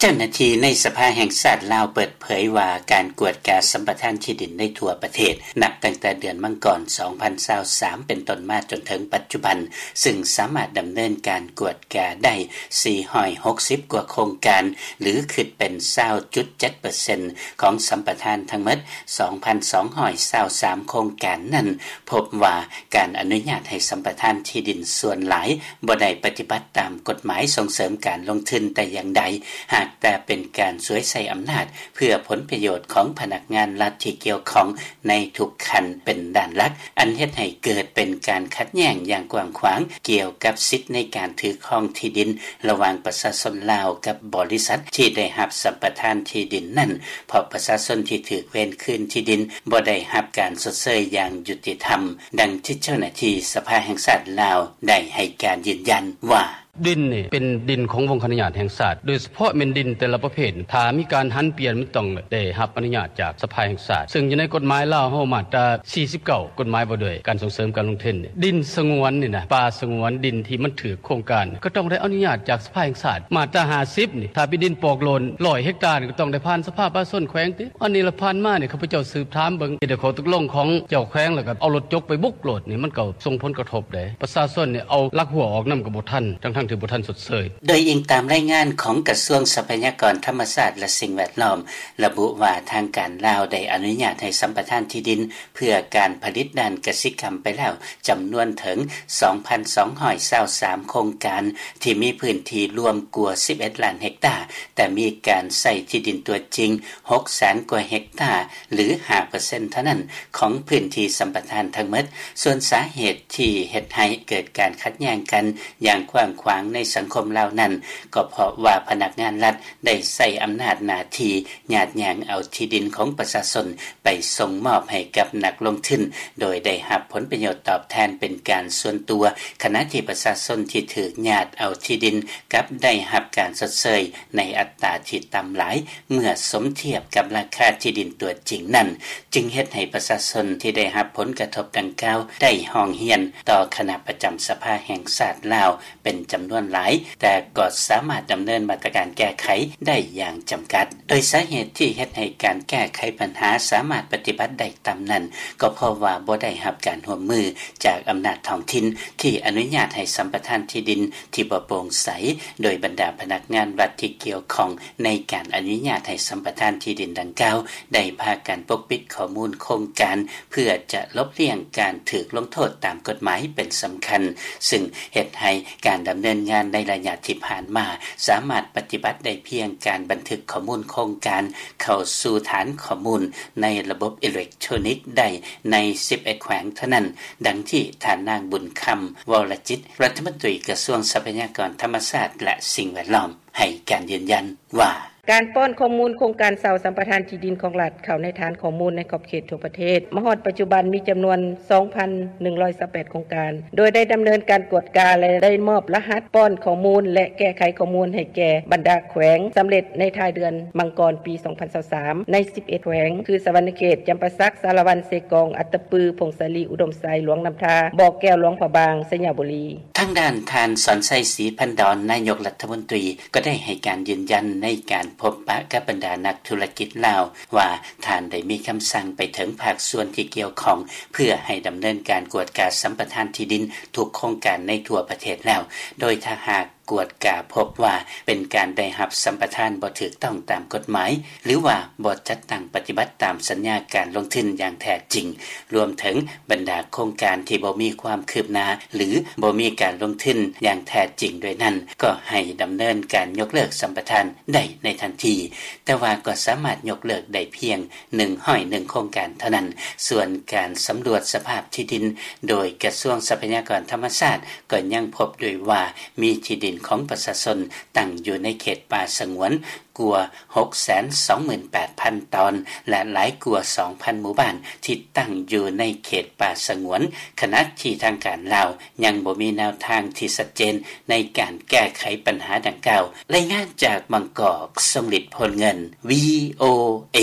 ເຈົ້າໜ້າທີ່ໃນສະພາແຫ່ງຊາດລາວເປີດເຜີຍວ່າ ການກວດກາສຳປະທານທີ່ດິນໃນທົ່ວປະເທດ ນັບຕັ້ງແຕ່ເດືອນມັງກອນ ສອງພັນຊາວສາມ ເປັນຕົ້ນມາຈົນເຖິງປັດຈຸບັນ ຊຶ່ງສາມາດດຳເນີນການກວດກາໄດ້ ສີ່ຮ້ອຍຫົກສິບກວ່າໂຄງການ ຫຼື ຄິດເປັນ ຊາວຈຸດເຈັດເປີເຊັນ ຂອງສຳປະທານທັງໝົດ ສອງພັນສອງຮ້ອຍຊາວສາມໂຄງການນັ້ນ ພົບວ່າການອະນຸຍາດໃຫ້ສຳປະທານທີ່ດິນສ່ວນຫຼາຍ ບໍ່ໄດ້ປະຕິບັດຕາມກົດໝາຍສົ່ງເສີມການລົງທຶນແຕ່ຢ່າງໃດ ຫາກແຕ່ເປັນການສວຍໃຊ້ອຳນາດ ເພື່ອຜົນປະໂຫຍດຂອງພະນັກງານລັດທີ່ກ່ຽວຂ້ອງໃນທຸກຂັ້ນເປັນດ້ານຫຼັກ ອັນເຮັດໃຫ້ເກີດເປັນການຂັດແຍ້ງຢ່າງກວ້າງຂວາງ ກ່ຽວກັບສິດໃນການຖືຄອງທີ່ດິນ ລະຫວ່າງປະຊາຊົນລາວກັບບໍລິສັດທີ່ໄດ້ຮັບສຳປະທານທີ່ດິນນັ້ນ ເພາະປະຊາຊົນທີ່ຖືກເວນຄືນທີ່ດິນບໍ່ໄດ້ຮັບການຊົດເຊີຍຢ່າງຍຸຕິທຳ, ດັ່ງທີ່ເຈົ້າໜ້າທີ່ສະພາແຫ່ງຊາດລາວໄດ້ໃຫ້ການຢືນຢັນວ່າ: ດິນນີ້ເປັນດິນຂອງວົງຄະອະນຸຍາດແຫ່ງຊາດ, ໂດຍສະເພາະແມ່ນດິນແຕ່ລະປະເພດ ຖ້າມີການຫັນປ່ຽນ ມັນຕ້ອງໄດ້ຮັບອະນຸຍາດຈາກສະພາແຫ່ງຊາດ, ເຊິ່ງຢູ່ໃນກົດໝາຍລາວເຮົາ ມາດຕາສີ່ສິບເກົ້າ ກົດໝາຍວ່າດ້ວຍການສົ່ງເສີມການລົງທຶນ. ດິນສະຫງວນນີ້ນະ ປ່າສະຫງວນ, ດິນທີ່ມັນຖືກໂຄງການ ກໍຕ້ອງໄດ້ອະນຸຍາດຈາກສະພາແຫ່ງຊາດ. ມາດຕາຫ້າສິບນີ້ ຖ້າເປັນດິນປອກໂລນ ຮ້ອຍເຮັກຕາ ກໍຕ້ອງໄດ້ຜ່ານສະພາປະຊາຊົນແຂວງຕິ. ອັນນີ້ລະ ຜ່ານມານີ້ ຂ້າພະເຈົ້າສືບຖາມເບິ່ງ ເຮັດໃຫ້ຂໍ້ຕົກລົງຂອງເຈົ້າແຂວງ ແລ້ວກໍເອົາລົດຈົກໄປບຸກໂລດນີ້ ມັນກໍສົ່ງຜົນກະທົບເດ້. ປະຊາຊົນນີ້ເອົາຫຼັກຮົ້ວອອກນຳກໍບໍ່ທັນ ທັງໆທີ່ບໍ່ທັນຊົດເຊີຍ. ໂດຍອີງຕາມລາຍງານຂອງກະຊວງຊັບພະຍາກອນທຳມະຊາດ ແລະ ສິ່ງແວດລ້ອມ ລະບຸວ່າ ທາງການລາວໄດ້ອະນຸຍາດໃຫ້ສຳປະທານທີ່ດິນ ເພື່ອການຜະລິດດ້ານກະສິກຳໄປແລ້ວ ຈຳນວນເຖິງ ສອງພັນສອງຮ້ອຍຊາວສາມໂຄງການ ທີ່ມີພື້ນທີ່ລວມກວ່າ ສິບເອັດລ້ານເຮັກຕາ, ແຕ່ມີການໃຊ້ທີ່ດິນຕົວຈິງ ຫົກແສນກວ່າເຮັກຕາ ຫຼື ຫ້າເປີເຊັນເທົ່ານັ້ນ ຂອງພື້ນທີ່ສຳປະທານທັງໝົດ. ສ່ວນສາເຫດທີ່ເຮັດໃຫ້ເກີດການຂັດແຍ້ງກັນຢ່າງກວ້າງຂວາງໃນສັງຄົມລາວນັ້ນ ກໍເພາະວ່າພະນັກງານລັດໄດ້ໃຊ້ອຳນາດໜ້າທີ່ ຍາດຍ່າງເອົາທີ່ດິນຂອງປະຊາຊົນໄປສົ່ງມອບໃຫ້ກັບນັກລົງທຶນ ໂດຍໄດ້ຮັບຜົນປະໂຫຍດຕອບແທນເປັນການສ່ວນຕົວ, ຂະນະທີ່ປະຊາຊົນທີ່ຖືກຍາດເອົາທີ່ດິນ ກັບໄດ້ຮັບການຊົດເຊີຍໃນອັດຕາທີ່ຕ່ຳຫຼາຍ ເມື່ອສົມທຽບກັບລາຄາທີ່ດິນຕົວຈິງນັ້ນ, ຈຶ່ງເຮັດໃຫ້ປະຊາຊົນທີ່ໄດ້ຮັບຜົນກະທົບດັ່ງກ່າວ ໄດ້ຮ້ອງຮຽນຕໍ່ຄະນະປະຈຳສະພາແຫ່ງຊາດລາວ ເປັນຈຳນວນຫຼາຍ, ແຕ່ກໍສາມາດດຳເນີນມາດຕະການແກ້ໄຂໄດ້ຢ່າງຈຳກັດ. ໂດຍສາເຫດທີ່ເຮັດໃຫ້ການແກ້ໄຂບັນຫາສາມາດປະຕິບັດໄດ້ຕ່ຳນັ້ນ ກໍເພາະວ່າບໍ່ໄດ້ຮັບການຮ່ວມມືຈາກອຳນາດທ້ອງຖິ່ນ ທີ່ອະນຸຍາດໃຫ້ສຳປະທານທີ່ດິນທີ່ບໍ່ໂປ່ງໃສ, ໂດຍບັນດາພະນັກງານລັດທີ່ກ່ຽວຂ້ອງໃນການອະນຸຍາດໃຫ້ສຳປະທານທີ່ດິນດັ່ງກ່າວ ໄດ້ພາກັນປົກປິດຂໍ້ມູນໂຄງການ ເພື່ອຈະຫຼົບລ້ຽງການຖືກລົງໂທດຕາມກົດໝາຍເປັນສຳຄັນ, ຊຶ່ງເຮັດໃຫ້ການດຳເນີນງານໃນໄລຍະທີ່ຜ່ານມາ ສາມາດປະຕິບັດໄດ້ພຽງການບັນທຶກຂໍ້ມູນໂຄງການເຂົ້າສູ່ຖານຂໍ້ມູນໃນລະບົບອີເລັກໂທຣນິກໄດ້ໃນສິບເອັດແຂວງເທົ່ານັ້ນ, ດັ່ງທີ່ທ່ານນາງ ບຸນຄຳ ວໍລະຈິດ ລັດຖະມົນຕີກະຊວງຊັບພະຍາກອນທຳມະຊາດ ແລະ ສິ່ງແວດລ້ອມ ໃຫ້ການຢືນຢັນວ່າ: ການປ້ອນຂໍ້ມູນໂຄງການເຊົ່າສຳປະທານທີ່ດິນຂອງລັດ ເຂົ້າໃນຖານຂໍ້ມູນໃນຂອບເຂດທົ່ວປະເທດ ມາຮອດປັດຈຸບັນມີຈຳນວນ ສອງພັນໜຶ່ງຮ້ອຍຊາວແປດໂຄງການ, ໂດຍໄດ້ດຳເນີນການກວດກາ ແລະ ໄດ້ມອບລະຫັດປ້ອນຂໍ້ມູນ ແລະ ແກ້ໄຂຂໍ້ມູນໃຫ້ແກ່ບັນດາແຂວງສຳເລັດໃນທ້າຍເດືອນມັງກອນປີສອງພັນຊາວສາມ ໃນສິບເອັດແຂວງ ຄື ສະຫວັນນະເຂດ, ຈຳປາສັກ, ສາລະວັນ, ເຊກອງ, ອັດຕະປື, ຜົ້ງສາລີ, ອຸດົມໄຊ, ຫຼວງນ້ຳທາ, ບໍ່ແກ້ວ, ຫຼວງພະບາງ, ໄຊຍະບູລີ. ທາງດ້ານທ່ານ ສອນໄຊ ສີພັນດອນ ນາຍົກລັດຖະມົນຕີ ກໍໄດ້ໃຫ້ການຢືນຢັນໃນການພົບປະກັບບັນດານັກທຸລະກິດລາວວ່າ ທ່ານໄດ້ມີຄຳສັ່ງໄປເຖິງພາກສ່ວນທີ່ກ່ຽວຂ້ອງ ເພື່ອໃຫ້ດຳເນີນການກວດກາສຳປະທານທີ່ດິນທຸກໂຄງການໃນທົ່ວປະເທດແລ້ວ, ໂດຍຖ້າຫາກກວດກາພົບວ່າເປັນການໄດ້ຮັບສຳປະທານບໍ່ຖືກຕ້ອງຕາມກົດໝາຍ ຫຼືວ່າບໍ່ຈັດຕັ້ງປະຕິບັດຕາມສັນຍາການລົງທຶນຢ່າງແທ້ຈິງ, ລວມເຖິງບັນດາໂຄງການທີ່ບໍ່ມີຄວາມຄືບໜ້າ ຫຼື ບໍ່ມີການລົງທຶນຢ່າງແທ້ຈິງດ້ວຍນັ້ນ ກໍໃຫ້ດຳເນີນການຍົກເລີກສຳປະທານໄດ້ໃນທັນທີ, ແຕ່ວ່າກໍສາມາດຍົກເລີກໄດ້ພຽງໜຶ່ງຮ້ອຍໜຶ່ງໂຄງການເທົ່ານັ້ນ. ສ່ວນການສຳຫຼວດສະພາບທີ່ດິນໂດຍກະຊວງຊັບພະຍາກອນທຳມະຊາດ ກໍຍັງພົບດ້ວຍວ່າ ມີທີ່ດິນຂອງປະຊາຊົນຕັ້ງຢູ່ໃນເຂດປ່າສະຫງວນ ກວ່າຫົກແສນສອງໝື່ນແປດພັນຕອນ ແລະ ຫຼາຍກວ່າສອງພັນໝູ່ບ້ານທີ່ຕັ້ງຢູ່ໃນເຂດປ່າສະຫງວນ, ຂະນະທີ່ທາງການລາວຍັງບໍ່ມີແນວທາງທີ່ຊັດເຈນໃນການແກ້ໄຂບັນຫາດັ່ງກ່າວ. ລາຍງານຈາກບາງກອກ, ຊົງລິດ ໂພນເງິນ ວີໂອເອ.